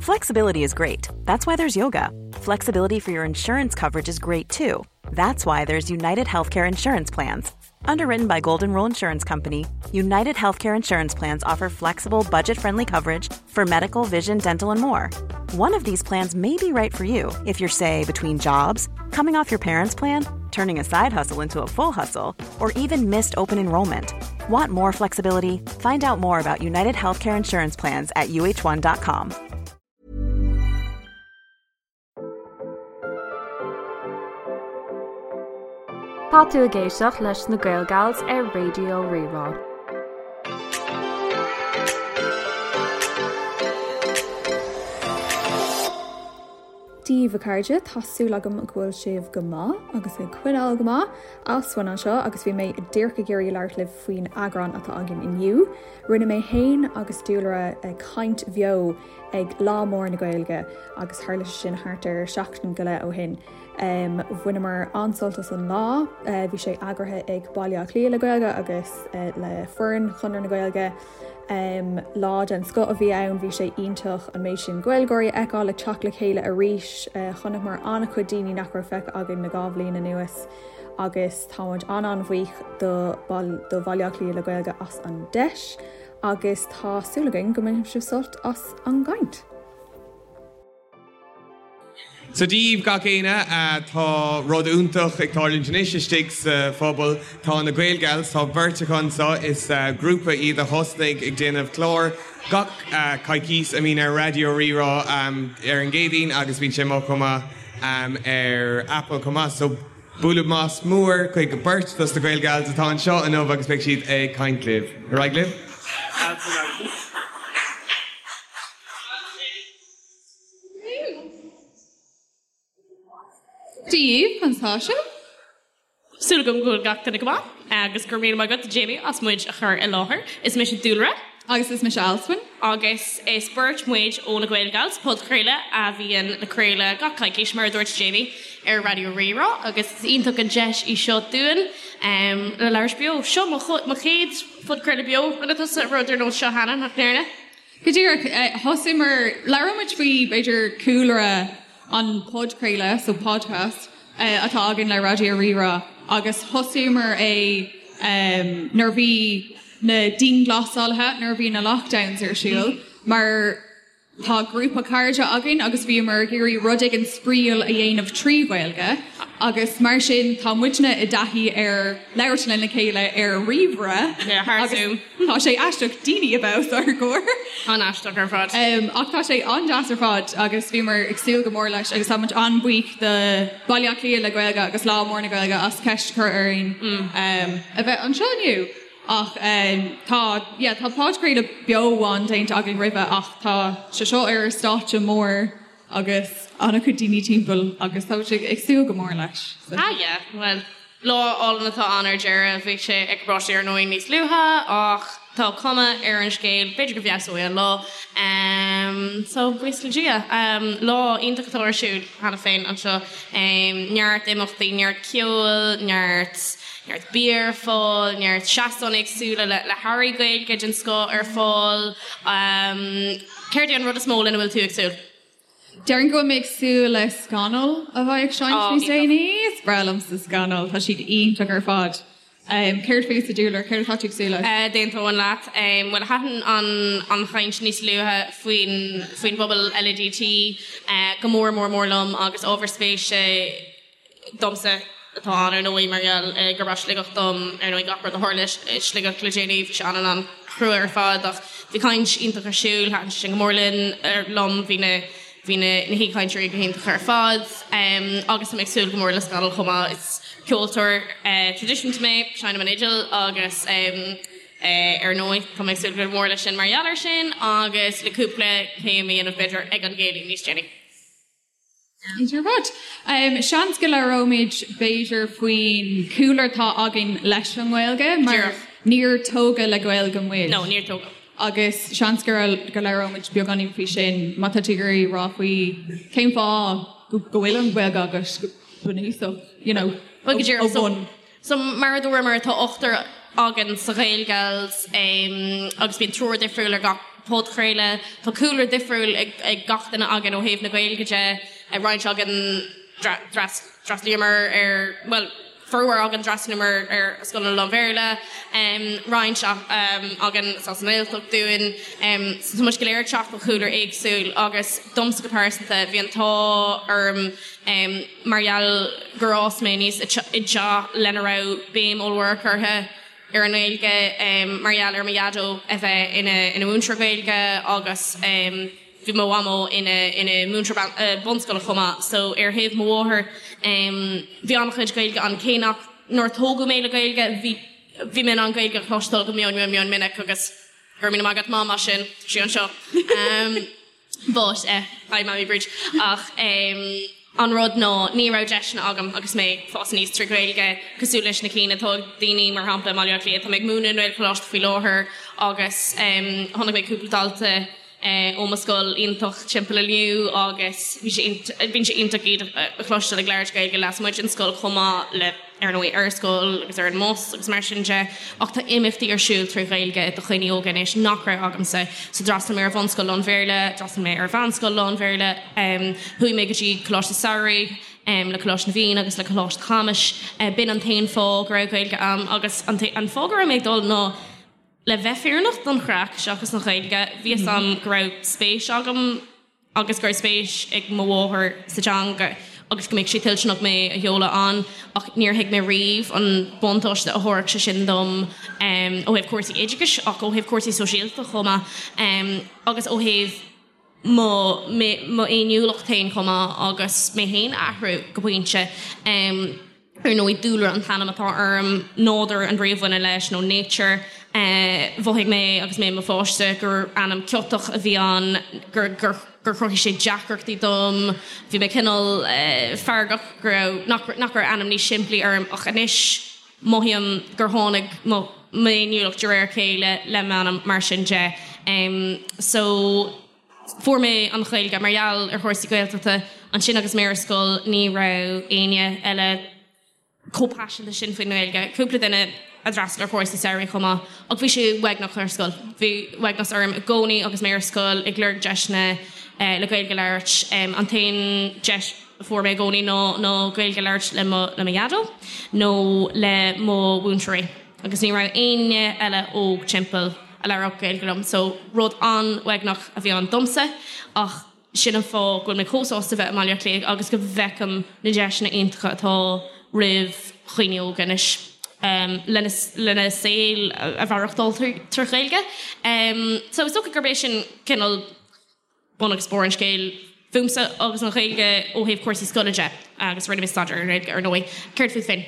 Flexibility is great. That's why there's yoga. Flexibility for your insurance coverage is great too. That's why there's United Healthcare Insurance Plans. Underwritten by Golden Rule Insurance Company, United Healthcare Insurance Plans offer flexible, budget friendly coverage for medical, vision, dental, and more. One of these plans may be right for you if you're, say, between jobs, coming off your parents' plan, turning a side hustle into a full hustle, or even missed open enrollment. Want more flexibility? Find out more about United Healthcare Insurance Plans at uh1.com. Tá tú ag éisteacht leis na Gaelgals ar Raidió Rí-Rá. Dia daoibh a chairde, tá súil agam go bhfuil sibh go maith agus ag coinneáil go maith. Alswyn anseo agus bhí mé díreach ag iarraidh labhairt libh faoin eagrán atá againn inniu. Rinne mé féin agus Dúlra caint bheo ag Lá Mór na Gaeilge agus tharla sé sin thart ar seachtain go leith ó shin. Bhaineamar an-sult as an lá. Bhí sé eagraithe ag Baile Átha Cliath le Gaeilge agus le foireann Chonradh na Gaeilge. Lá den scoth a bhí ann, bhí sé iontach an méid sin Gaeilgeoirí a fheiceáil ag teacht le chéile arís. Chonaiceamar an-chuid daoine nach raibh feicthe againn le 2 bhliain anuas agus tá muid an-an-bhuíoch do do Bhaile Átha Cliath le Gaeilge as an deis agus tá súil againn go mbainfidh sibh sult as an gcaint. So Dia daoibh gach éinne, tá rud iontach ag tarlúint anois istigh sa phuball. Tá na Gaelgals, tá beirt acu anseo, is grúpa iad a thosnaigh ag déanamh clár gach coicís a mbíonn ar Raidió Rí-Rá ar an gCéadaoin agus bíonn sé amuigh chomh maith ar Apple chomh maith. So bualadh bos mór chuig beirt dos na Gaelgals atá anseo inniu agus beidh siad ag caint libh. Ar aghaidh libh. Dia daoibh, conas tá sibh? Súil agam go bhfuil gach duine go maith agus go raibh míle maith agat Jamie as muid a chur i láthair. Is mise Dúlra. Agus is mise Alswyn. Agus is beirt muid ó na Gaelgals, podchraoladh a bhíonn le craoladh gach coicís, mar a dúirt Jamie, ar Raidió Rí-Rá agus is iontach an deis í seo dúinn le labhairt beo. Seo mo chéad phodchraoladh beo. Rinne tusa rud ar nós seo cheana, nach ndearna? Go díreach, thosaíomar, labhróidh muid faoi, b'fhéidir, cúlra an podchraoladh, so podcast, atá againn le Raidió Rí-Rá agus thosaíomar é nuair a bhí na dianghlasálaithe, nuair a bhí na lockdowns ar siúl, mar tá grúpa cairde againn agus bhíomar ag iarraidh rud éigin spraíúil a dhéanamh trí Ghaeilge agus mar sin tá muidne i dtaithí ar labhairt lena chéile ar ríomhaire agus Tá sé aisteach daoine a bheith os ár gcomhair. An-aisteach ar fad. Ach tá sé an-deas ar fad agus bhíomar ag súil go mór leis agus tá muid an-bhuíoch do Baile Átha Cliath le Gaeilge agus Lá Mór na Gaeilge as ceist a chur orainn a bheith anseo inniu. Ach tá, yeah, tá podchraoladh beo amháin déanta againn roimhe ach tá sé seo ar stáitse mór agus an-chuid daoine timpeall agus tá muid ag súil go mór leis. Ah yeah, bhuel, lá álainn atá ann ar deireadh. Bhí sé ag báisteach ar ndóigh níos luaithe ach tá cuma ar an scéal, b'fhéidir go bhfeabhsóidh an lá. So, buíochas le Dia. Lá iontach atá ar siúl cheana féin anseo. Neart imeachtaí, neart ceoil, neart neart bia ar fáil, neart seastáin éagsúla le le hearraí Gaeilge den scoth ar fáil. Céard é an rud is mó lena bhfuil tú ag súil? Déarfainn go bhfuil mé ag súil le Scannal a bheidh ag seinnt níos déanaí. Is breá liomsa Scannal, tá siad iontach ar fad. Céard fútsa, Dúlra, céard atá tú ag súil leis? D'aontóinn leat. Bhuel, thaitin an chaint níos luaithe faoin faoin bpobal LADT go mór mór mór liom agus ábhar spéise domsa atá ann ar ndóigh mar gheall gurb as Sligeach dom, ar ndóigh gach rud a tharla i Sligeach le déanaí, bhí sé an-an-chrua ar fad ach bhí caint iontach ar siúl, thaitin sé sin go mór linn, liom, bhí na bhí na na haoichainteoirí go hiontach ar fad agus tá mé ag súil go mór le Scannal chomh maith, is ceoltóir traidisiúnta mé, seinnim an fhidil agus ar ndóigh tá mé ag súil go mór leis sin mar gheall air sin agus le cúpla céim a dhéanamh b'fhéidir ag an gcéilí níos déanaí. Iontach ar fad. Seans go labhróimid b'fhéidir faoin chúlra atá againn leis an nGaeilge mar níor tógadh le Gaeilge muid. No, níor tógadh. Agus seans go labhróimid beagáinín faoi sin má tá tú ag iarraidh rá faoi cén fáth go bhfuil an Ghaeilge agat go bunúsach, you know, ó bhun. So, mar a dúramar, tá ochtar againn sa Ghaelgals agus bíonn triúr difriúil ar gach. podchraoladh. Tá cúlra difriúil ag gach duine againn ó thaobh na Gaeilge de, roinnt againn d'fhreastlaíomar ar, bhuel, formhór againn d'fhreastlaíomar ar scoileanna lán-Bhéarla, roinnt againn is as an nGaeltacht dúinn. So tá muid go léir ag teacht ó chúlra éagsúil agus domsa go pearsanta bhí an t-ádh orm mar gheall gur fhás mé aníos i dteach lena raibh béim ollmhór curtha ar an nGaeilge mar gheall ar mo dhaideo a bheith ina mhúinteoir Gaeilge agus bhí mo mhamó ina ina múinteoir bunscoile chomh maith so ar thaobh mo mháthar bhí an-chuid Gaeilge ann cé nach nár tógadh mé le Gaeilge bhí bhí mé in ann Gaeilge a chloisteáil go mion mion mion minic agus go raibh míle maith agat Mam as sin tá sí anseo. But eh, hi Mammy Bríd. Ach em, an rud ná ní raibh deiseanna agam agus mé ag fás aníos trí Ghaeilge cosúil leis na cinn atá ag daoine mar shampla i mBaile Átha Cliath. Tá mé ag múineadh i nGaelcholáiste faoi láthair agus em, chonaic mé cúpla dalta eh, ó mo scoil iontach timpeall inniu agus bhí sé bíonn sé iontach iad a chloisteáil ag labhairt Gaeilge lasmuigh den scoil chomh maith le ar ndóigh, ar scoil agus ar an mbus agus mar sin de, ach tá imeachtaí ar siúl trí Ghaeilge do dhaoine óga anois nach raibh agamsa. So d'fhreastail mé ar bhunscoil lán-Bhéarla, d'fhreastail mé ar mheánscoil lán-Bhéarla, chuaigh mé go dtí Coláiste Samhraidh le Coláiste na bhFiann agus le Coláiste Chamuis. B'in an t-aon fáth go raibh Gaeilge a'm agus an fáth go raibh mé ag dul ná le bheith fírinneach don chraic seachas an Ghaeilge. Bhí fhios a'm go raibh spéis agam agus go raibh spéis ag mo mháthair sa teanga agus go mbeadh sí toilteanach mé a sheoladh ann ach níor thuig mé riamh an buntáiste a thabharfadh sé sin dom ó thaobh cúrsaí oideachais ach ó thaobh cúrsaí sóisialta chomh maith agus ó thaobh mo m'fhéiniúlacht féin chomh maith agus mé féin a athrú go pointe. Ar ndóigh, Dúlra an t-ainm atá orm, nádúr an bhrí a bhaineann leis, nó nature. Mhothaigh mé agus mé i mo pháiste gur ainm ciotach a bhí ann, gur gur chruthaigh sé deacrachtaí dom. Bhí mé cineál feargach go raibh, nach nach raibh ainm níos simplí orm ach anois mothaím gur tháinig mo m'fhéiniúlacht de réir a chéile le m'ainm mar sin de. So. Fuair mé an Ghaeilge mar gheall ar chúrsaí Gaeltachta ansin agus mé ar scoil ní raibh éinne eile chomh paiseanta sin faoin nGaeilge. Cúpla duine a d'fhreastail ar chúrsaí samhraidh chomh maith ach bhí sé uaigneach ar scoil. Bhí uaigneas orm i gcónaí agus mé ar scoil ag lorg deiseanna le Gaeilge a labhairt. An t-aon deis a fuair mé i gcónaí ná ná Gaeilge a labhairt le mo le mo dhaideo nó le mo mhúinteoirí. Agus ní raibh éinne eile óg timpeall a labhródh Gaeilge liom so rud an-uaigneach a bhí ann domsa ach sin an fáth go bhfuil mé chomh sásta bheith i mBaile Átha Cliath agus go bhfeicim na deiseanna iontacha atá roimh dhaoine óga anois lena lena saol a mhaireachtáil trí Ghaeilge. So is dócha gurb é sin cineál bun agus barr an scéil fúmsa agus an Ghaeilge ó thaobh cúrsaí scoile de agus rinne mé staidéar ar an nGaeilge ar ndóigh. Céard fút féin?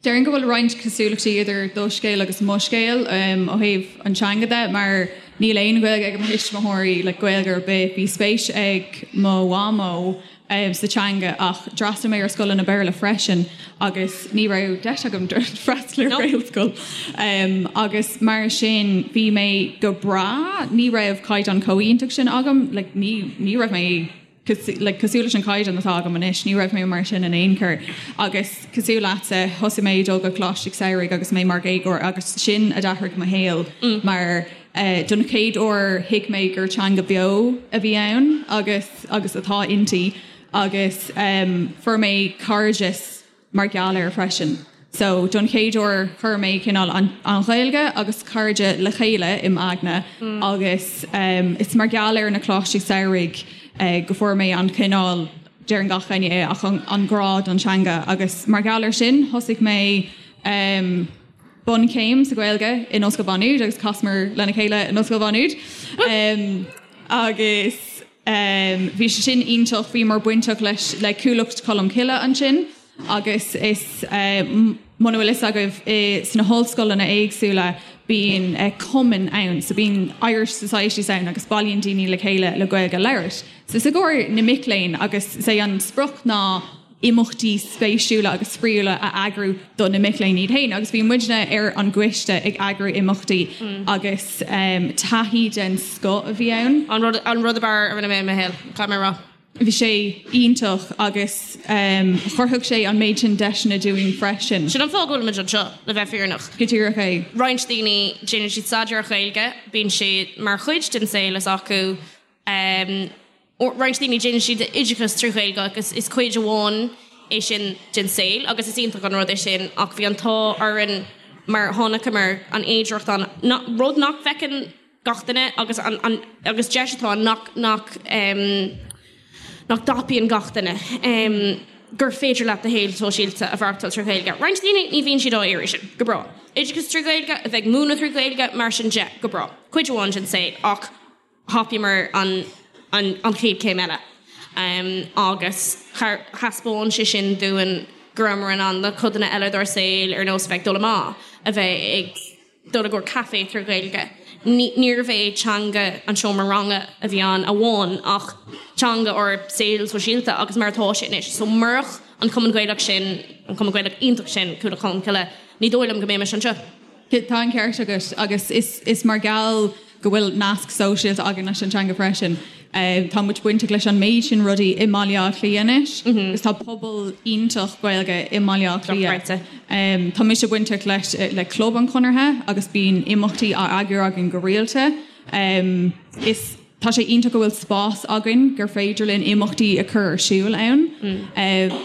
Déarfainn go bhfuil roinnt cosúlachtaí idir do scéal agus mo scéal ó thaobh an teanga de mar níl aon Ghaeilge ag mo thuismitheoirí, like Gaeilge ar bith. Bhí spéis ag mo mhamó sa teanga ach d'fhreastail mé ar scoileanna Béarla freisin agus ní raibh deis agam freastal ar Ghaelscoil agus mar sin bhí mé go breá, ní raibh caighdeán chomh iontach sin agam, like ní ní raibh mé like cosúil leis an caighdeán atá agam anois, ní raibh mé mar sin in aon chor. Agus cosúil leatsa, thosaigh mé ag dul go Coláiste Samhraidh agus mé mar dhéagóir agus sin a d'athraigh mo shaol mar don chéad uair thuig mé gur teanga beo a bhí ann agus agus atá inti agus fuair mé cairdeas mar gheall air freisin. So don chéad uair chuir mé cineál an an Ghaeilge agus cairde le chéile i m'aigne agus is mar gheall ar na coláistí samhraidh go fuair mé an cineál, deireann gach éinne é, ach an an grá don teanga agus mar gheall air sin thosaigh mé bunchéim sa Ghaeilge in Ollscoil Mhá Nuad agus chasamar lena chéile in Ollscoil Mhá Nuad agus bhí sé sin iontach, bhíomar bainteach leis le Cuallacht Cholm Cille ansin agus is muna bhfuil fhios agaibh sna hollscoileanna éagsúla bíonn cumainn ann, so bíonn Irish Societies ann agus bailíonn daoine le chéile le Gaeilge a labhairt. So is i gcomhair na mic léinn agus is é an sprioc ná imeachtaí spéisiúla agus spraíúla a eagrú do na mic léinn iad féin agus bhí muidne ar an gcoiste ag eagrú imeachtaí agus taithí den scoth a bhí ann. An rud, an rud ab fhearr a rinne mé i mo shaol, caithfidh mé a rá. Bhí sé iontach agus chruthaigh sé an méid sin deiseanna dúinn freisin. Sin an fáth go bhfuilimid anseo, le bheith fírinneach. Go díreach é. Roinnt daoine, déanann siad staidéar ar Ghaeilge, bíonn sé mar chuid den saol s'acu. Roinnt daoine, déanann siad oideachas trí Ghaeilge agus is cuid amháin é sin den saol agus is iontach an rud é sin ach bhí an t-ádh orainn mar chonaiceamar an fhéidearthacht ann, rud nach bhfeiceann gach duine agus an an agus deis atá ann nach nach nach dtapaíonn gach duine gur féidir leat do shaol sóisialta a mhaireachtáil trí Ghaeilge. Roinnt daoine ní bhíonn siad á iarraidh sin. Go breá. Oideachas trí Ghaeilge, a bheith ag múineadh trí Ghaeilge, mar sin de, go breá. Cuid amháin den saol ach thapaíomar an an an chéad chéim eile agus thaispeáin sé sin dúinn go rabhamar in ann na codanna eile dár saol ar nós a bheith ag dul amach, a bheith ag dul i gcomhair caife trí Ghaeilge. Níorbh é teanga an seomra ranga a bhí ann amháin ach teanga ár saol sóisialta agus mar atá sé anois. So murach an Cumann Gaelach sin, an Cumann Gaelach iontach sin, Cuallacht Cholmcille, ní dóigh liom go mbeimis anseo. Tá an ceart agat agus is mar gheall go bhfuil nasc sóisialta againn leis an teanga freisin. Tá muid bainteach leis an méid sin rudaí i mBaile Átha Cliath anois agus tá pobal iontach Gaeilge i mBaile Átha Cliath. Tá mise bainteach leis le Club an Chonartha agus bíonn imeachtaí á eagrú againn go rialta. Is tá sé iontach go bhfuil spás againn gur féidir linn imeachtaí a chur ar siúl ann.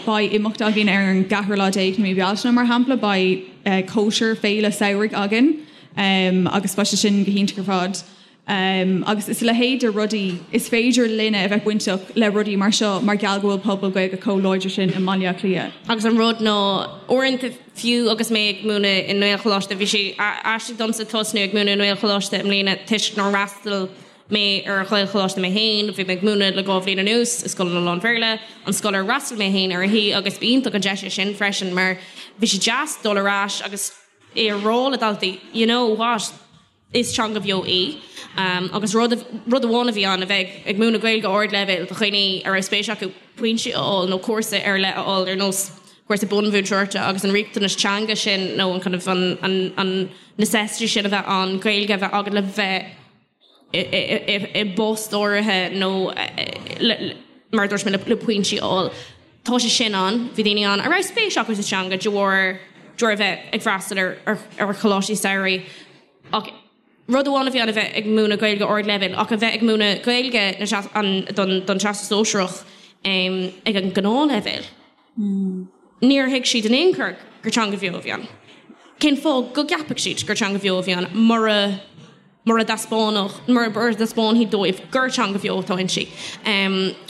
Beidh imeacht againn ar an gceathrú lá déag de mí Bealtaine mar shampla, beidh cóisir féile samhraidh againn. Agus beidh sé sin go hiontach ar fad. Agus is a leithéid de rudaí, is féidir linne a bheith bainteach le rudaí mar seo mar gheall go bhfuil pobal Gaeilge chomh láidir sin i mBaile Átha Cliath. Agus an rud ná, uaireanta, fiú agus mé ag múineadh i nGaelcholáiste, bhí sé aisteach domsa tosnú ag múineadh i nGaelcholáiste i mbliana toisc nár fhreastail mé ar Ghaelcholáiste mé féin, bhí mé ag múineadh le 2 bhliain anuas i scoileanna lán-Bhéarla, an scoil ar fhreastail mé féin uirthi, agus b'iontach an deis é sin freisin mar bhí sé deas dul ar ais agus é a rá le daltaí, you know what, is teanga bheo í. Agus rud, rud amháin a bhí ann, a bheith ag múineadh Gaeilge ardleibhéil do dhaoine a raibh spéis acu pointí a fháil nó cúrsa ar leith a fháil ar nós cúrsa bunmhúinteoireachta agus an riachtanas teanga sin nó an kind of an, an, an necessity sin a bheith ann, Gaeilge a bheith agat le bheith i bpost áirithe nó mar a dúirt mé le pointí a fháil. Tá sé sin ann. Bhí daoine ann a raibh spéis acu sa teanga de bharr de bharr a bheith ag freastal ar ar choláistí samhraidh ach rud amháin a bhí ann a bheith ag múineadh Gaeilge ardleibhéil ach a bheith ag múineadh Gaeilge don don Teastas Sóisearach ag an ngnáthleibhéal. Níor thuig siad in aon chor gur teanga bheo a bhí ann. Cén fáth go gceapfadh siad gur teanga bheo a bhí ann mura mura dtaispeánfadh, mura dtaispeánfaí dóibh gur teanga bheo atá inti.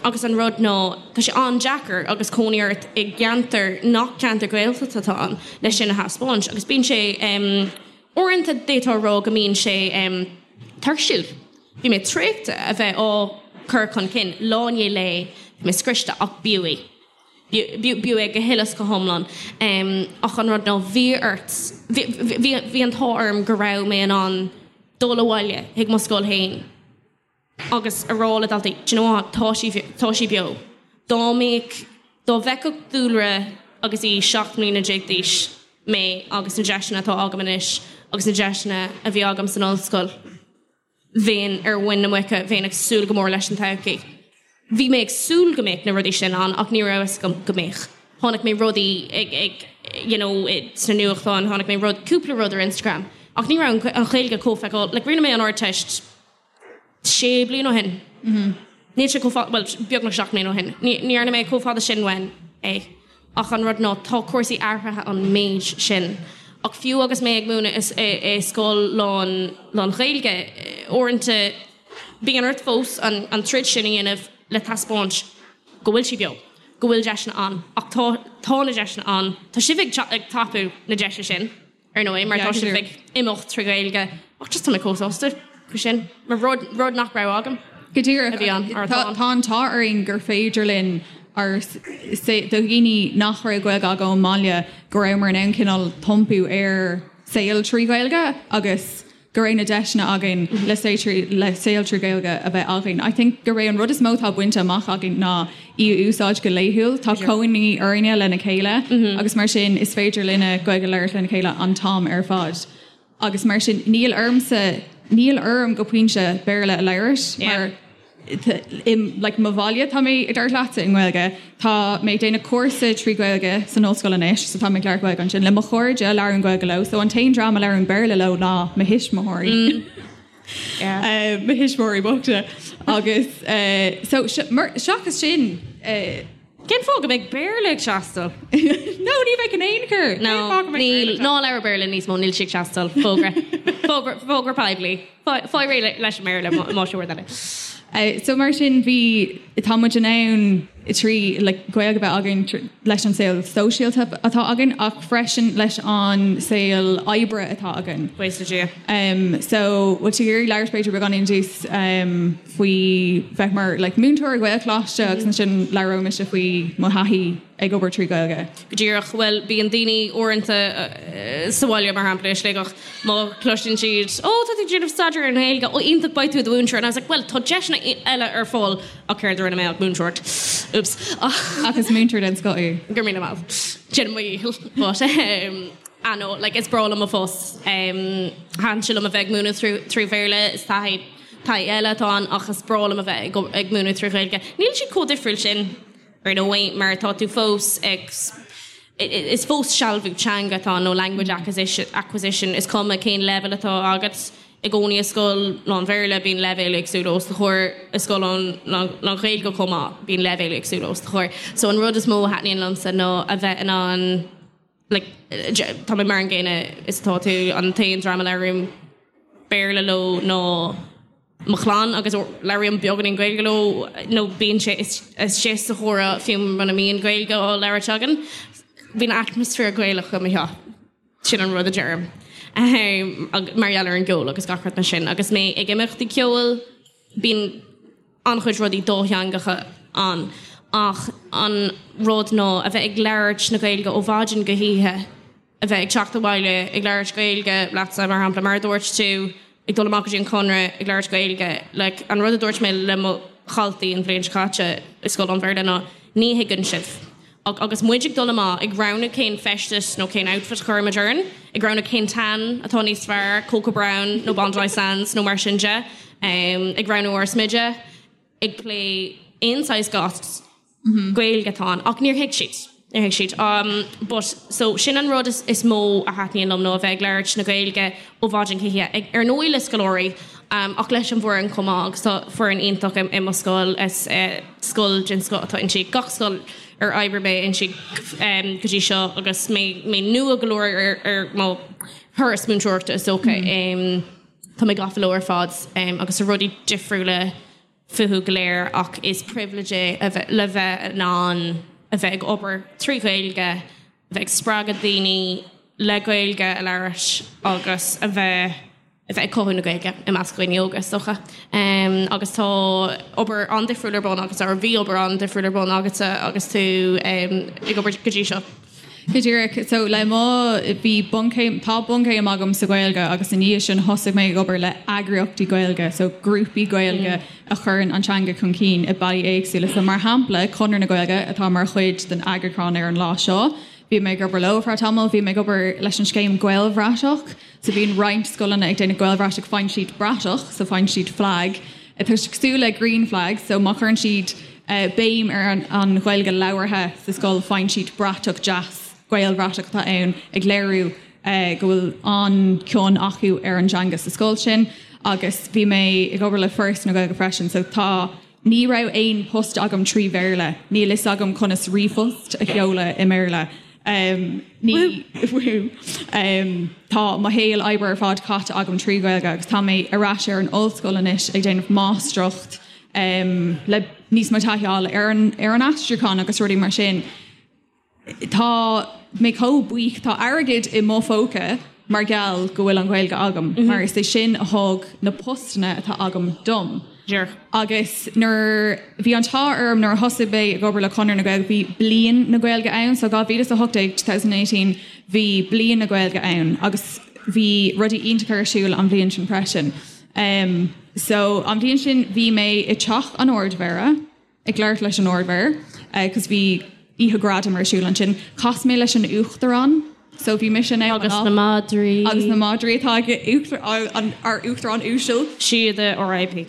Agus an rud ná, tá sé an-deacair agus cónaí ort i gceantar nach ceantar Gaeltachta atá ann leis sin a thaispeáint. Agus bíonn sé, uaireanta d'fhéadfá a rá go mbíonn sé tuirsiúil. Bhí mé traochta a bheith á cur chun cinn lá i ndiaidh lae, bhí mé scriosta ach b'fhiú é. B'fhiú é go huile is go hiomlán. Ach an rud ná, bhí ort, bhí an t-ádh orm go raibh mé in ann dul abhaile chuig mo scoil féin agus a rá le daltaí, do you know what, tá sí, tá sí beo. Dá mbeadh, dá bhfeicfeadh Dúlra agus í 17 mbliana d'aois mé agus na deiseanna atá agam anois agus na deiseanna a bhí agam san ollscoil, bheinn ar mhuin na muice, bheinn ag súil go mór leis an todhchaí. Bhí mé ag súil go mbeadh na rudaí sin ann ach ní raibh fhios agam go mbeadh. Chonaic mé rudaí ag, ag, you know, sna nuachtáin, chonaic mé rud, cúpla rud ar Instagram ach ní raibh an Ghaeilge chomh feiceáil, like rinne mé an Ardteist sé bliana ó shin. Níl sé chomh fada, bhuel, beagnach 7 mbliana ó shin. Ní dhearna mé chomh fada sin uaim é. Ach an rud ná, tá cúrsaí athraithe an méid sin. Ach fiú agus mé ag múineadh i scoil lán, lán-Ghaeilge, uaireanta bíonn ort fós an troid sin a dhéanamh le taispeáint go bhfuil sí beo, go bhfuil deiseanna ann. Ach tá, tá na deiseanna ann. Tá sibh ag tapú na deise sin. ar ndóigh, mar tá sibh ag imeacht trí Ghaeilge. Ach just tá mé chomh sásta faoi sin, mar rud, rud nach raibh agam. Go díreach. A bhí ann, mar atá ann. Tá an t-ádh orainn gur féidir linn ár, do dhaoine nach raibh Gaeilge acu ón mbaile, go rabhamar in ann cineál iompú ar saol trí Ghaeilge agus go raibh na deiseanna againn le saol trí Ghaeilge a bheith againn. I think gurb é an rud is mó atá bainte amach againn ná í a úsáid go laethúil. Tá cónaí orainne lena chéile agus mar sin is féidir linne Gaeilge a labhairt lena chéile an t-am ar fad. Agus mar sin níl ormsa, níl orm go pointe Béarla a labhairt mar. I like mo bhaile tá mé ag labhairt leatsa i nGaeilge. Tá mé ag déanamh cúrsa trí Ghaeilge san ollscoil anois so tá mé ag labhairt Gaeilge ansin le mo chairde labhraím Gaeilge leo so an t-aon dream a labhraím Béarla leo ná mo thuismitheoirí. Mo thuismitheoirí bochta agus so seachas sin Cén fáth go mbeidh Béarla ag teastáil? No, ní bheidh in aon chor. No, níl. Ná labhair Béarla níos mó, níl sé ag teastáil. Fógra. Fógra, fógra poiblí. Faigh réidh leis an mBéarla más rud eile. So mar sin bhí, tá muid in ann trí like Gaeilge a bheith againn leis an saol sóisialta atá againn ach freisin leis an saol oibre atá againn. Buíochas le Dia. Um, so bhfuil tú ag iarraidh labhairt b'fhéidir beagáinín dús um, faoi bheith mar like, múinteoir i Gaelcholáiste agus ansin labhróidh mise faoi mo thaithí ag obair trí Ghaeilge. Go díreach. Bhuel, bíonn daoine uaireanta sa bhaile, mar shampla, i Sligeach, má chloiseann siad, 'Ó, tá tú ag déanamh staidéar ar an nGaeilge, ó, iontach, beidh tú i do mhúinteoir. And I was like, 'Bhuel, tá deiseanna eile ar fáil ach céard a rinne mé ach múinteoireacht. Oops. Ach is múinteoir den scoth í. Go raibh míle maith. Déanaim mo dhícheall. But, um, ah no, like, is breá liom mo phost. Um, thaitin sé liom a bheith ag múineadh trí Bhéarla, is taithí taithí eile atá ann ach is breá liom a bheith ag, ag múineadh trí Ghaeilge. Níl siad chomh difriúil sin. Ar ndóigh, mar tá tú fós ag, is fós sealbhú teanga atá ann, nó language acquisition, is cuma cén leibhéal atá agat. I gcónaí i scoil lán-Bhéarla bíonn leibhéil éagsúla os do chomhair, i scoil lán-Ghaeilge chomh maith bíonn leibhéil éagsúla os do chomhair. So an rud is mó a thaitníonn liomsa ná a bheith in ann, like, tá mé mar an gcéanna is atá tú, an t-aon dream a labhraím Béarla leo ná, mo chlann agus labhraím beagáinín Gaeilge leo nó bíonn sé istigh sa chomhrá fiú muna mbíonn Gaeilge á labhairt againn. Bíonn atmaisféar Gaelach i mo theach. Sin an rud a deirim. Mar gheall ar an gceol agus gach rud mar sin. Agus mé ag imeachtaí ceoil bíonn an-chuid rudaí dátheangacha ann ach an rud ná a bheith ag labhairt na Gaeilge ó mhaidin go hoíche, a bheith ag teacht abhaile ag labhairt Gaeilge leatsa, mar shampla, mar a dúirt tú, ag dul amach go dtí an Conradh ag labhairt Gaeilge. Like, an rud a dúirt mé le mo dhaltaí an bhliain seo caite i scoil lán-Bhéarla ná, ní thuigeann sibh. Ach agus muid ag dul amach, ag roghnú cén feisteas nó cén outfit a chuirimid orainn, ag roghnú cén tan atá níos fearr, Cocoa Brown nó Bondi Sands nó mar sin de, ag roghnú ár smideadh, ag plé aon saghas goss, Gaeilge atá ann ach níor thuig siad. Níor thuig siad. But so sin an rud is mó a thaitníonn liom nó a bheith ag labhairt na Gaeilge ó mhaidin go hoíche. Ag, ar ndóigh le scoláirí ach leis an bhfoireann chomh maith agus tá foireann iontach i mo scoil. Is scoil den scoth atá inti. Gach scoil ar oibrigh mé inti go dtí seo agus mé mé nua go leor ar ar mo thuras múinteoireachta is dócha. Tá mé gafa leo ar fad agus tá rudaí difriúla fúthu go léir ach is privilege é a bheith le bheith in ann a bheith ag obair trí Ghaeilge, a bheith ag spreagadh daoine le Gaeilge a labhairt agus a bheith a bheith ag cothú na Gaeilge i measc dhaoine óga is dócha. Agus tá obair an-difriúil ar bun agus or bhí obair an-difriúil ar bun agatsa agus tú ag obair go dtí seo. Go díreach. So le mo, bhí bunchéim, tá bunchéim agam sa Ghaeilge agus i ndiaidh sin thosaigh mé ag obair le eagraíochtaí Gaeilge, so grúpaí Gaeilge a chuireann an teanga chun cinn i bealaí éagsúla. So mar shampla, Conradh na Gaeilge atá mar chuid den eagrúchán ar an lá seo, bhí mé ag obair leo ar feadh tamaill, bhí mé ag obair leis an scéim Gaelbhratach, So bíonn roinnt scoileanna ag déanamh Gaelbhratach, faigheann siad bratach, so faigheann siad flag, atá cosúil le green flag, so má chuireann siad béim ar an Ghaeilge labhartha sa scoil, faigheann siad bratach deas, Gaelbhratach atá ann, ag léiriú go bhfuil an-chion acu ar an dteanga sa scoil sin. Agus bhí mé ag obair le Foras na Gaeilge freisin, so tá. Ní raibh aon post agam trí Bhéarla. Níl fhios agam conas ríomhphost a sheoladh i mBéarla. Ní Tá mo shaol oibre ar fad caite agam trí Ghaeilge agus tá mé ar ais ar an ollscoil anois ag déanamh máistreacht le níos mó taithí a fháil ar an ar an aistriúchán agus rudaí mar sin. Tá mé chomh buíoch, tá airgead i mo phóca mar gheall go bhfuil an Ghaeilge agam, mar is é sin a thug na postanna atá agam dom. Agus nuair, bhí an t-ádh orm nuair a thosaigh mé ag obair le Conradh na Gaeilge, bhí Bliain na Gaeilge ann, so 2018, 2018, bhí Bliain na Gaeilge ann agus bhí rudaí iontacha ar siúl an bhliain sin freisin. So an bhliain sin bhí mé i dTeach an Ardmhéara, ag labhairt leis an Ardmhéara cos bhí oíche gradam ar siúl ansin. Chas mé leis an Uachtarán so bhí mise in ann Agus na madraí. Agus na madraí atá ag ár Uachtarán uasal. Síoda RIP.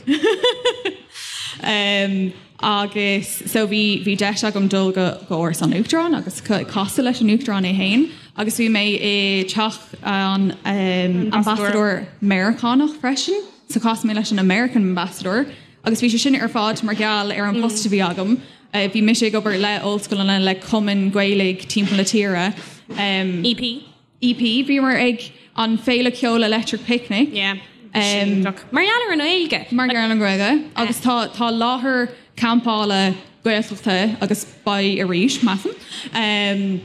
Um, agus so bhí bhí deis agam dul go go Áras an Uachtaráin agus casadh leis an Uachtarán é féin agus bhí mé i teach an um, ambasadóir Meiriceánach freisin, so chas mé leis an American Ambassador agus bhí sé sin ar fad mar gheall ar an post a bhí agam. Uh, bhí mise ag obair le ollscoileanna le cumainn Gaeilge timpeall na tíre. Um, EP. EP, bhíomar ag an Féile Ceoil Electric Picnic. Yeah. Um, mar gheall ar an Ghaeilge. Mar gheall ar an Ghaeilge. Agus tá tá láthair campála Gaeltachta agus beidh arís, measaim. Um,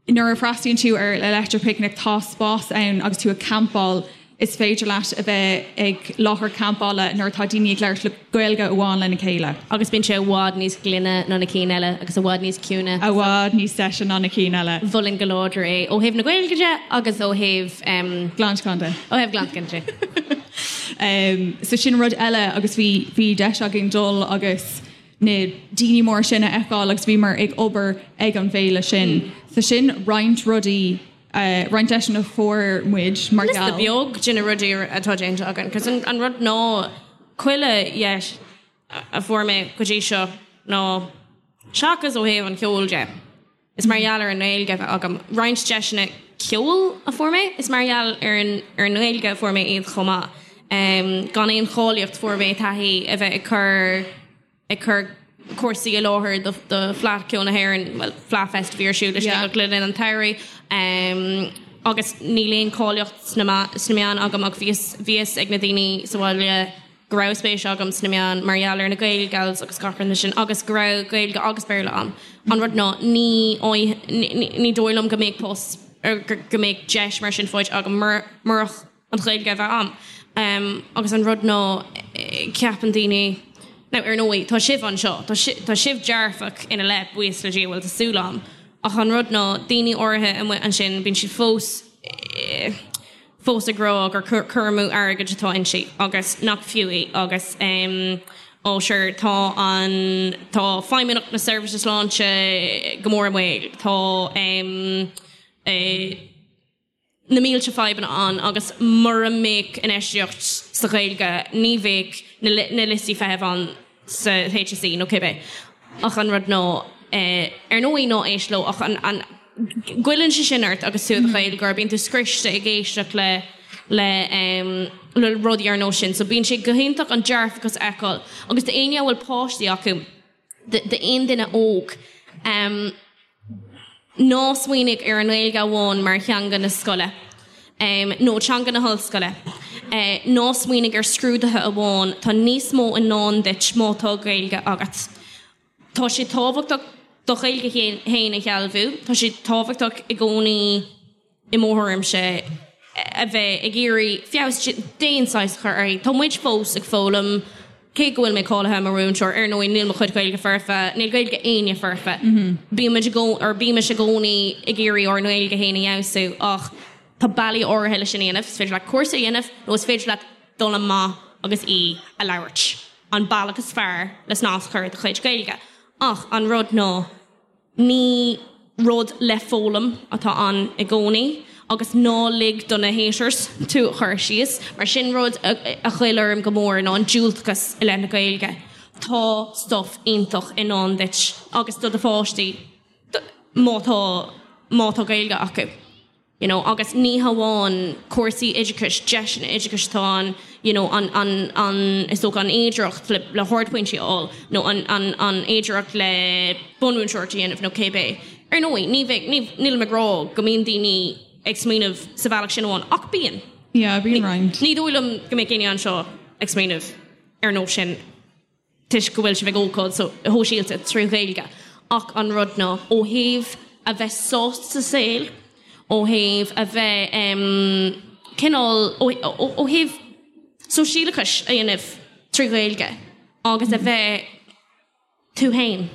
nuair a fhreastalaíonn tú ar Electric Picnic tá spás ann agus tú ag campáil is féidir leat a bheith ag láthair campála nuair atá daoine ag labhairt le Gaeilge amháin lena chéile. Agus bíonn sé i bhfad níos glaine ná na cinn eile agus i bhfad níos ciúine. I bhfad níos deise ná na cinn eile. Mholfainn go láidir é ó thaobh na Gaeilge de agus ó thaobh. Glantacháin de. Ó thaobh glantacháin de. So sin rud eile agus bhí bhí deis againn dul agus na daoine móra sin a fheiceáil agus bhíomar ag obair ag an bhféile sin. So sin roinnt rudaí. roinnt deiseanna a fuair muid mar gheall. Liosta beag de na rudaí atá déanta againn, 'cause an rud ná chuile dheis a fuair mé go dtí seo ná, seachas ó thaobh an cheoil de, is mar gheall ar an nGaeilge a bheith agam. Roinnt deiseanna ceoil a fuair mé, is mar gheall ar an ar an nGaeilge a fuair mé iad chomh maith. Gan aon cháilíocht fuair mé taithí a bheith ag cur. ag cur cúrsaí i láthair do Fleadh Cheoil na hÉireann, bhuel, Fleadh Fest a bhí ar siúl i Sligeach le linn an tsamhraidh, agus níl aon cháilíocht sna meáin agam ach bhí fhios ag na daoine sa bhaile go raibh spéis agam sna meáin mar gheall ar na Gaelgals agus gach rud sin agus go raibh Gaeilge agus Béarla agam. An rud ná ní ní dóigh liom go mbeadh post go mbeadh deis mar sin faighte agam murach an Ghaeilge a bheith a'm. Agus an rud ná, ceapann daoine, now ar ndóigh, tá sibh anseo, tá tá sibh dearfach ina leith, buíochas le Dia, bhuel tá súil a'm. Ach an rud ná, daoine áirithe amuigh ansin, bíonn siad fós, fós ag rá gur cur amú airgid atá inti agus nach fiú í agus ó sure tá an, tá Feidhmeannacht na Seirbhíse Sláinte go mór i mbaol, tá eh, na mílte fadhbanna ann agus mura mbeadh infheistíocht sa Ghaeilge ní bheadh na liostaí feithimh ann sa HSE nó cibé. Ach an rud ná, ar ndóigh ná éist leo ach an, an, goilleann sé sin ort agus tú i do Ghaeilgeoir, bíonn tú scriosta ag éisteacht le, le, le rudaí ar nós sin. So bíonn sé go hiontach an dearfachas a fheiceáil agus d'éinne a bhfuil páistí acu, d'aon duine óg, ná smaoinigh ar an nGaeilge amháin mar theanga na scoile nó teanga na hollscoile. Ná smaoinigh ar scrúduithe amháin, tá níos mó i ndán duit má tá Gaeilge agat. Tá sé tábhachtach do Ghaeilge féin a shealbhú, tá sé tábhachtach i gcónaí, i mo thuairimse, a bheith ag iarraidh feabhas d'aon saghas a chur uirthi. Tá muid fós ag foghlaim, cé go bhfuil mé cáilithe mar mhúinteoir, ar ndóigh níl mo chuid Gaeilge foirfe, níl Gaeilge éinne foirfe. Bímid i gcónaí, or bímis i gcónaí ag iarraidh ár nGaeilge féin a fheabhsú ach tá bealaí áirithe leis sin a dhéanamh, is féidir leat cúrsa a dhéanamh nó is féidir leat dul amach agus í a labhairt. An bealach is fearr le snas a chur ar do chuid Gaeilge. Ach an rud ná. Ní rud le foghlaim atá ann i gcónaí agus ná lig do na haters tú a chur síos, mar sin rud a ghoill orm go mór ná an diúltachas i leith na Gaeilge. Tá stuff iontach i ndán duit agus do do pháistí má tá má tá Gaeilge acu. you know agus ní hamháin cúrsaí oideachais, deiseanna oideachais atá ann, you know an, an, an, is dócha an fhéidearthacht le, le hardphointí a fháil nó an, an, an fhéidearthacht le bunmhúinteoireacht a dhéanamh nó cébé. Ar ndóigh, ní bheidh, ní, nílim ag rá go mbíonn daoine ag smaoineamh sa bhealach sin amháin, ach bíonn. Yeah, bíonn roinnt. Ní dóigh liom go mbeadh éinne anseo ag smaoineamh ar nós sin. toisc go bhfuil sibh ag ócáid shóisialta trí Ghaeilge ach an rud ná ó thaobh a bheith sásta sa saol, ó thaobh a bheith cineál, ó thaobh sóisialachais a dhéanamh trí Ghaeilge agus a bheith tú féin.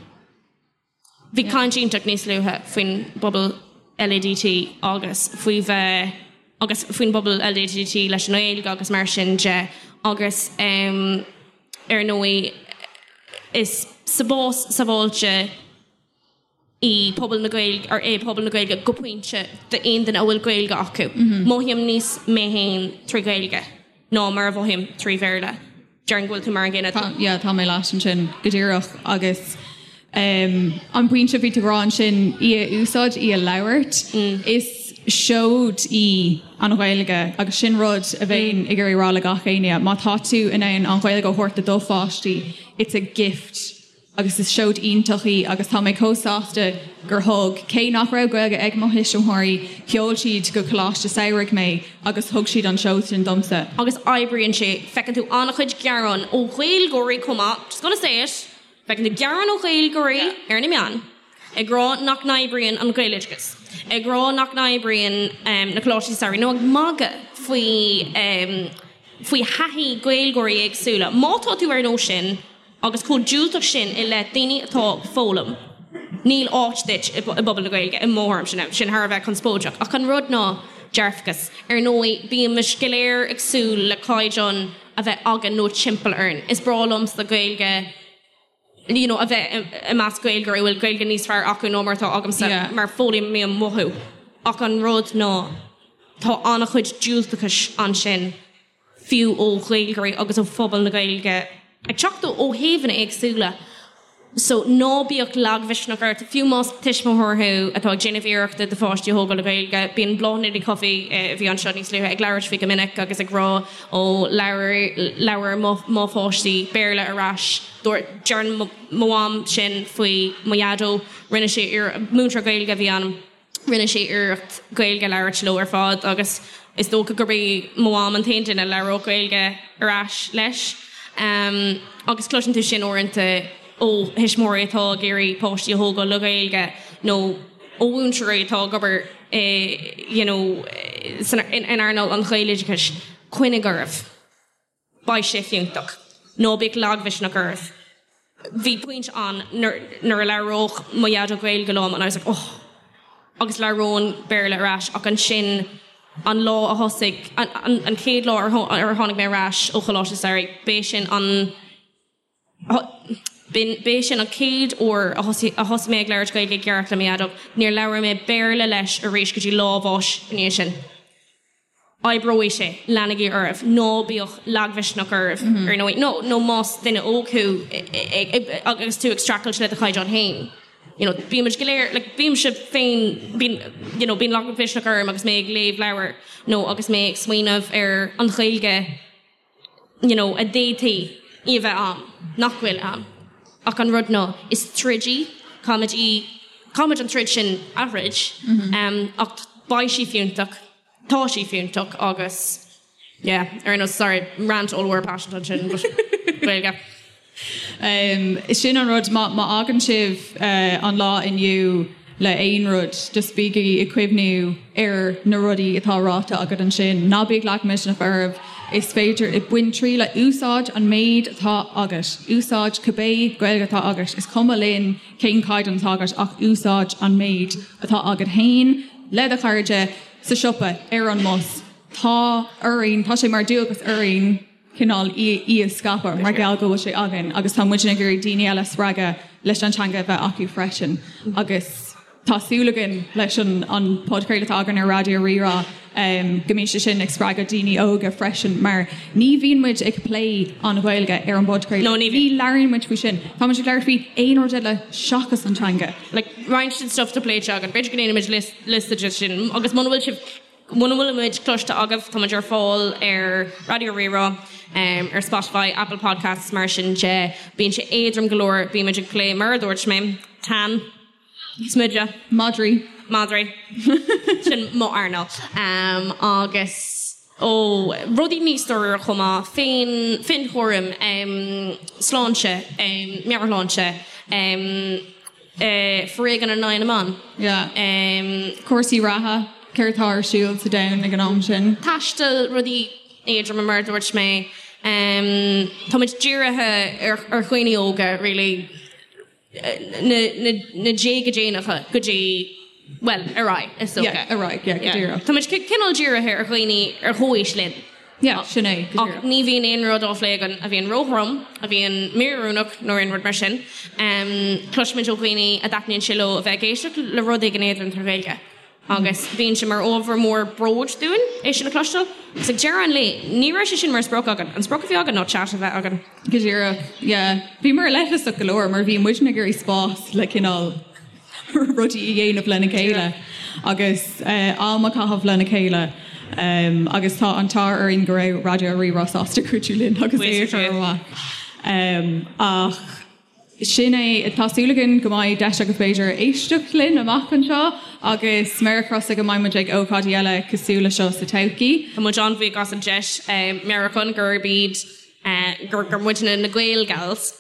Bhí caint iontach níos luaithe faoin bpobal LADT agus faoi bheith agus faoin bpobal LADT leis an nGaeilge agus mar sin de agus ar ndóigh is spás sábháilte í pobal na Gaeilge or é pobal na Gaeilge go pointe d'aon duine a bhfuil Gaeilge acu. Mothaím níos mé féin trí Ghaeilge ná mar a mhothaím trí Bhéarla. Déarfainn go bhfuil tú mar an gcéanna. Tá, yeah, tá mé leat ansin go díreach agus an pointe a bhí tú ag rá ansin, í a úsáid, í a labhairt, is seoid í an Ghaeilge agus sin rud a bheinn ag iarraidh rá le gach éinne, má tá tú in ann an Ghaeilge a thabhairt do do pháistí, it's a gift. Agus is seoid iontach í agus tá mé chomh sásta gur thug, cé nach raibh Gaeilge ag mo thuismitheoirí, sheol siad go coláiste samhraidh mé agus thug siad an seod sin domsa. Agus oibríonn sé. Feiceann tú an-chuid gearán ó Ghaeilgeoirí chomh maith, just gonna say it, feiceann tú gearán ó Ghaeilgeoirí ar na meáin ag rá nach n-oibríonn an Gaeloideachas, ag rá nach n-oibríonn na coláistí samhraidh nó ag magadh faoi faoi thaithí Gaeilgeoirí éagsúla. Má tá tú ar nós sin, Agus chomh diúltach sin i leith daoine atá ag foghlaim, níl áit duit i bpobal na Gaeilge, i mo thuairimse. Sin thar a bheith conspóideach. Ach an rud ná dearfachas. Ar ndóigh, bímid go léir ag súil le caighdeán a bheith againn nó timpeall orainn. Is breá liomsa Gaeilge you know a bheith i measc Gaeilgeoirí a bhfuil Gaeilge níos fearr acu ná mar atá agamsa, mar foghlaimím uathu. Ach an rud ná tá an-chuid diúltachais ansin. fiú ó Ghaeilgeoirí agus ó phobal na Gaeilge, ag teacht ó thaobhanna éagsúla. So, ná bíodh lagmhisneach ort, fiú más tuismitheoir thú atá ag déanamh iarrachta do pháistí a thógáil le Gaeilge. Bíonn Bláthnaid Ní Chofaigh, a bhí anseo níos luaithe, ag labhairt faoi go minic agus ag rá, ó, labhair, labhair mo, mo pháistí Béarla ar ais. Dúirt, deireann mo mham sin faoi mo dhaideo, rinne sé iarracht, múinteoir Gaeilge a bhí ann. Rinne sé iarracht Gaeilge a labhairt leo ar fad agus is dócha gurb é mo mham an t-aon duine a labhródh Gaeilge ar ais leis. Agus cloiseann tú sin uaireanta ó thuismitheoirí atá ag iarraidh páistí a thógáil le Gaeilge nó ó mhúinteoirí atá ag obair i you know in earnáil an Ghaeloideachais, coinnigh oraibh. Beidh sé fiúntach. Ná bíodh lagmhisneach oraibh. Bhí pointe ann nuair a labhródh mo dhaideo Gaeilge liom and I was like oh agus labhróinn Béarla ar ais ach ansin an lá a thosaigh, an chéad lá ar tháinig mé ar ais ó Choláiste Samhraidh, b'é sin an, b'é sin an chéad uair a thosaigh mé ag labhairt Gaeilge i gceart le mo dhaideo. Níor labhair mé Béarla leis arís go dtí lá a bháis i ndiaidh sin. Oibreoidh sé, leanaigí oraibh, ná bíodh lagmhisneach oraibh, ar ndóigh, nó nó más duine óg thú agus tú ag streachailt le do chaighdeán féin, you know, bímid go léir, like, bímse féin, bíonn, you know, bíonn lagmhisneach orm agus mé ag léamh leabhair nó agus mé ag smaoineamh ar an Ghaeilge, you know, a d'fhéadfaí í a bheith a'm, nach bhfuil a'm. Ach an rud ná, is troid í, caithfimid í, caithfimid an troid sin a throid, ach beidh sí fiúntach, tá sí fiúntach agus, yeah, ar aon nós, sorry, rant ollmhór paiseanta ansin, but Gaeilge. Sin an rud, má fhágann sibh an lá inniu le aon rud, just bígí ag cuimhniú ar na rudaí atá ráite agat ansin. Ná bíodh lagmhisneach oraibh, is féidir, bain triail, úsáid an méid atá agat, úsáid cibé Gaeilge atá agat, is cuma linn cén caighdeán atá agat ach úsáid an méid atá agat féin, le do chairde, sa siopa, ar an mbus. Tá orainn, tá sé mar dualgas orainn, cineál í a scaipeadh mar gheall go bhfuil sé againn agus tá muidne ag iarraidh daoine eile a spreagadh leis an teanga a bheith acu freisin agus tá súil againn leis an an podchraoladh atá againn ar Raidió Rí-Rá go mbíonn sé sin ag spreagadh daoine óga freisin mar ní bhíonn muid ag plé an Ghaeilge ar an bpodchraoladh. No, ní bhíonn. Ní labhraíonn muid faoi sin. Tá muid ag labhairt faoi aon rud eile seachas an teanga. Like roinnt den stuff atá pléite againn, b'fhéidir go ndéanfaimid liosta de sin agus muna bhfuil sibh Muna bhfuil muid cloiste agaibh, tá muid ar fáil ar Raidió Rí-Rá, ar Spotify, Apple Podcasts, mar sin de. Bíonn sé éadrom go leor, bímid ag plé, mar a dúirt mé, tan, smideadh. Madraí. Madraí. Sin mo earnáil. Agus, ó, rudaí níos dáiríre chomh maith, féin, féinchúram, sláinte, meabhairshláinte, Foréigean in aghaidh na mban. Yeah. Cúrsaí reatha, céard atá ar siúl sa domhan ag an am sin. Taisteal, rudaí éadroma mar a dúirt mé. Táimid dírithe ar dhaoine óga really, na déaga déanacha go dtí, bhuel, ar aghaidh is dócha. Yeah, ar aghaidh, yeah, go díreach. Táimid cineál dírithe ar dhaoine ar chomhaois linn. Yeah, sin é, go díreach. Ach ní bhíonn aon rud á phlé againn a bhíonn róthrom, a bhíonn míoiriúnach nó aon rud mar sin. Cloisimid ó dhaoine a dtaitníonn sé leo a bheith ag éisteacht le rud éigin éadrom trí Ghaeilge. Agus bíonn sé mar ábhar mór bróid dúinn é sin a chloisteáil. Agus ag deireadh an lae, ní raibh sé sin mar sprioc againn. An sprioc a bhí againn ná chat a bheith againn. Go díreach, yeah. Bhíomar leithleasach go leor mar bhí muidne ag iarraidh spás le cineál rudaí a dhéanamh lena chéile agus am a chaitheamh lena chéile agus tá an t-ádh orainn go raibh Raidió Rí-Rá sásta cuidiú linn agus é a chur amach. Ach sin é, tá súil againn go mbeidh deis agaibh b'fhéidir éisteacht linn amach anseo agus méar crosta go mbeidh muid ag ócáidí eile cosúil le seo sa todhchaí. Tá muid an-bhuíoch as an deis meabhrúchán gurb iad gur gur muidne na Gaelgals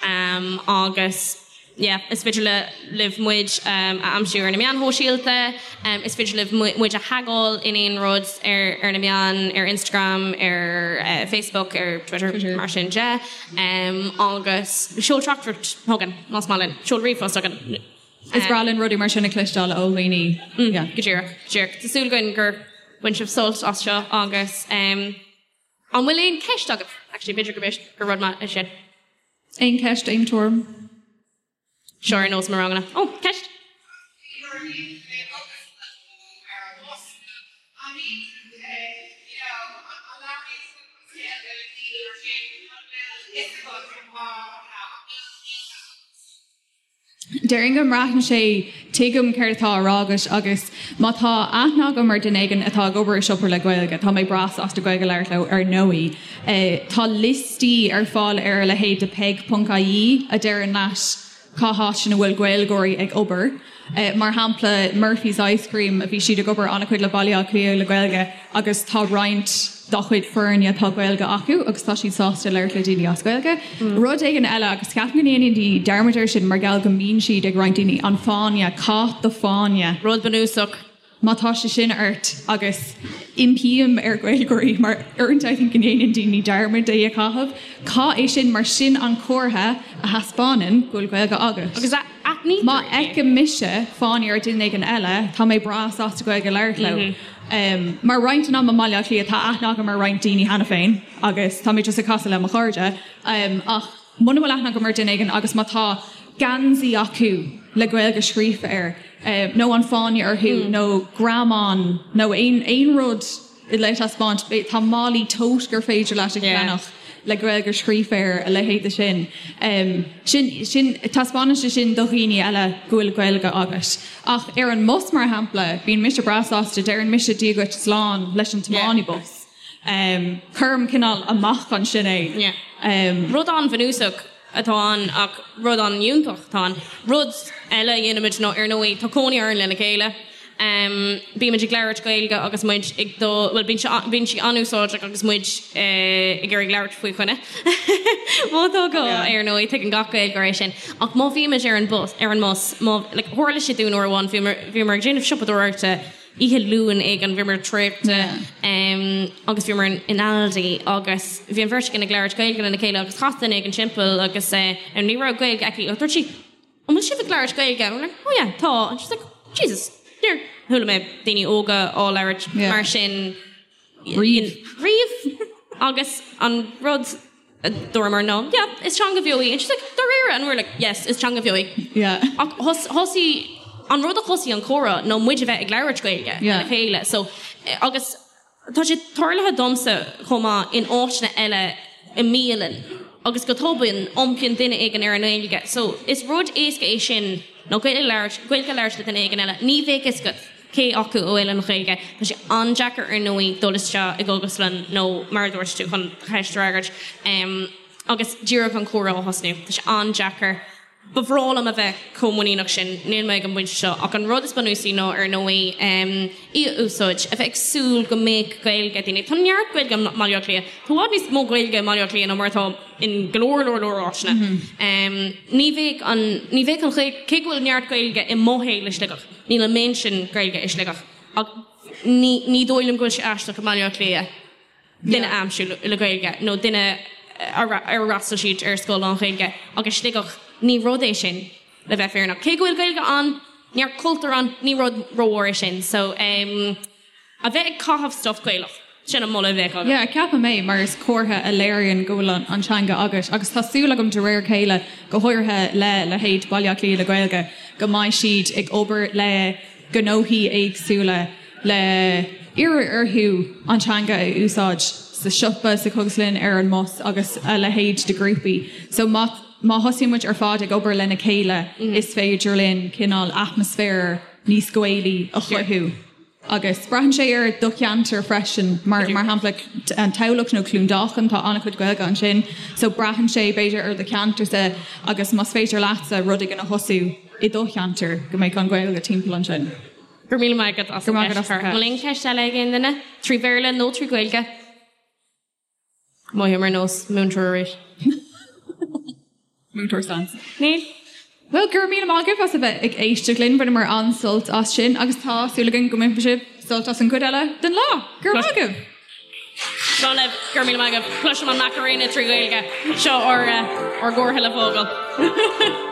agus yeah is féidir le libh muid a aimsiú ar na meáin shóisialta, is féidir libh muid a thagáil in aon rud ar ar na meáin, ar Instagram, ar Facebook, ar Twitter, mar sin de agus seol teachtaireacht chugainn más maith linn, seol ríomhphost chugainn. Is breá linn rudaí mar sin a chloisteáil ó dhaoine. Yeah. Go díreach, go díreach. Tá súil againn gur bhain sibh sult as seo agus. An bhfuil aon ceist agaibh? Actually, b'fhéidir go b'fhéidir gur rud maith é sin. Aon ceist, aon tuairim? Seo ar nós mo ranganna. Ó, ceist! Déarfainn go mbraitheann sé, tuigim céard atá á rá agat agus má tá aithne agam ar duine éigin atá ag obair i siopa le Gaeilge, tá mé breá sásta Gaeilge a labhairt leo ar ndóigh. Tá liostaí ar fáil ar a leithéid de peig.ie a deireann leat cá háit ina bhfuil Gaeilgeoirí ag obair. Mar shampla, Murphy's Ice Cream, bhí siad ag obair an-chuid le Baile Átha Cliath le Gaeilge agus tá roinnt dá chuid foirne tá Gaeilge acu agus tá siad sásta labhairt le daoine as Gaeilge. Rud éigin eile, agus ceapaim go ndéanann daoine dearmad air sin mar gheall go mbíonn siad ag roinnt daoine, an fáinne, caith do fáinne. Rud bunúsach. Má tá sé sin ort, agus impím ar Ghaeilgeoirí, mar uaireanta I think go ndéanann daoine dearmad é a chaitheamh, caith é sin mar sin an comhartha a thaispeánann go bhfuil Gaeilge agat. Agus aithnítear Má é. fheicim mise fáinne ar duine éigin eile, tá mé breá sásta Gaeilge a labhairt leo. Mar roinnt den am i mBaile Átha Cliath, tá aithne agam ar roinnt daoine cheana féin agus tá mé just ag casadh le mo chairde. Ach muna bhfuil aithne agam ar duine éigin agus má tá geansaí acu le Gaeilge scríofa air, nó an fáinne orthu, nó greamán, nó aon aon rud le taispeáint, tá málaí tote gur féidir leat a cheannach le Gaeilge scríofa air, a leithéid de sin. Sin, sin, taispeánann sé sin do dhaoine eile go bhfuil Gaeilge agat. Ach ar an mbus, mar shampla, bíonn mise breá sásta, deireann mise Dia dhuit slán leis an tiománaí bus. Cuirim cineál amach ansin é. Rud an-bhunúsach atá ann ach rud an-fhiúntach atá ann. Rud eile a dhéanaimid ná, ar ndóigh, tá cónaí orainn lena chéile. Bímid ag labhairt Gaeilge agus muid ag dul, bhuel, bíonn sé, bíonn sí an-úsáideach agus muid ag iarraidh labhairt faoi choinne. Má tá gá, ar ndóigh, tuigeann gach Gaeilgeoir é sin. Ach má bhímid ar an bus, ar an mbus, má, like, tharla sé dúinn uair amháin, bhíomar, bhíomar ag déanamh siopadóireachta, Oíche Luain éigin, bhíomar traochta agus bhíomar in Aldi agus bhí an bheirt againn ag labhairt Gaeilge lena chéile agus chas duine éigin timpeall agus ní raibh Gaeilge aici ach dúirt sí An bhfuil sibh ag labhairt Gaeilge? And we're like, Oh yeah, tá. And she's like, Jesus, níor chuala mé daoine óga á labhairt mar sin. Riamh. Riamh. Agus an rud a dúramar ná, yeah, is teanga bheo í. And she's like, dáiríre? And we were like, yes, is teanga bheo í. Yeah. Ach thosaigh, an rud a thosaigh an comhrá ná muid a bheith ag labhairt Gaeilge lena chéile. So, agus tá sé tarlaithe domsa chomh maith in áiteanna eile i mbialann agus go tobann iompaíonn duine éigin ar an nGaeilge. So, is rud éasca é sin ná Gaeilge a labhairt, Gaeilge a labhairt le duine éigin eile. Ní bheadh fhios agat. cé acu a bhfuil an Ghaeilge. Tá sé an-deacair ar ndóigh dul isteach i gcógaslann nó mar a dúirt tú chun do cheist a fhreagairt agus díreach an comhrá a thosnú. Tá sé an-deacair. Ba bhreá liom a bheith chomh muiníneach sin, níl mé ag an bpointe seo ach an rud is bunúsaí ná ar ndóigh í a úsáid, a bheith ag súil go mbeadh Gaeilge ag daoine. Tá neart Gaeilge i mBaile Átha Cliath. Tá i bhfad níos mó Gaeilge i mBaile Átha Cliath ná mar atá in go leor leor leor áiteanna. Ní bheadh an, ní bheadh an Ghaeilge, cé go bhfuil neart Gaeilge i mo shaol i Sligeach, Níl an méid sin Gaeilge i Sligeach ach ní ní dóigh liom go bhfuil sé aisteach i mBaile Átha Cliath duine a aimsiú le Gaeilge nó duine ar fhreastail siad ar scoil lán-Ghaeilge ach i Sligeach ní rud é sin le bheith fírinneach. Cé go bhfuil Gaeilge ann, neart cultúr ann, ní rud rómhór é sin. So ehm. A bheith ag caitheamh stuif Gaelach, sin an moladh a bheadh agam. Yeah, ceapaim é, mar is comhartha a léiríonn go bhfuil an teanga agat. Agus tá súil agam de réir a chéile, go háirithe le leithéid Baile Átha Cliath le Gaeilge, go mbeidh siad ag obair le. gnóthaí éagsúla le iarraidh orthu an teanga a úsáid sa siopa, sa chógaslann, ar an mbus agus a leithéid de ghrúpaí. So má má thosaíonn muid ar fad ag obair lena chéile is féidir linn cineál atmaisféar níos Gaelaí a chruthú. Agus braitheann sé ar do cheantar freisin, mar mar shampla an Tamhlacht nó Cluain Dolcáin, tá an-chuid Gaeilge ansin, so braitheann sé b'fhéidir ar do cheantarsa agus más féidir leatsa rud éigin a thosú i do cheantar go mbeidh an Ghaeilge timpeall ansin. Go raibh míle maith agat as an gceist. An bhfuil aon cheist eile ag aon duine? Trí Bhéarla nó trí Ghaeilge? Mothaím ar nós múinteoir arís. Múinteoir Stans. Níl. Bhuel, go raibh míle maith agaibh as a bheith ag éisteacht linn. Bhaineamar an-sult as sin agus tá súil againn go mbainfidh sibh sult as an gcuid eile den lá. Go raibh maith agaibh! Slán libh, go raibh míle maith agaibh. Cloisim an Macarena trí Ghaeilge. Seo ár gcomhartha le fágáil.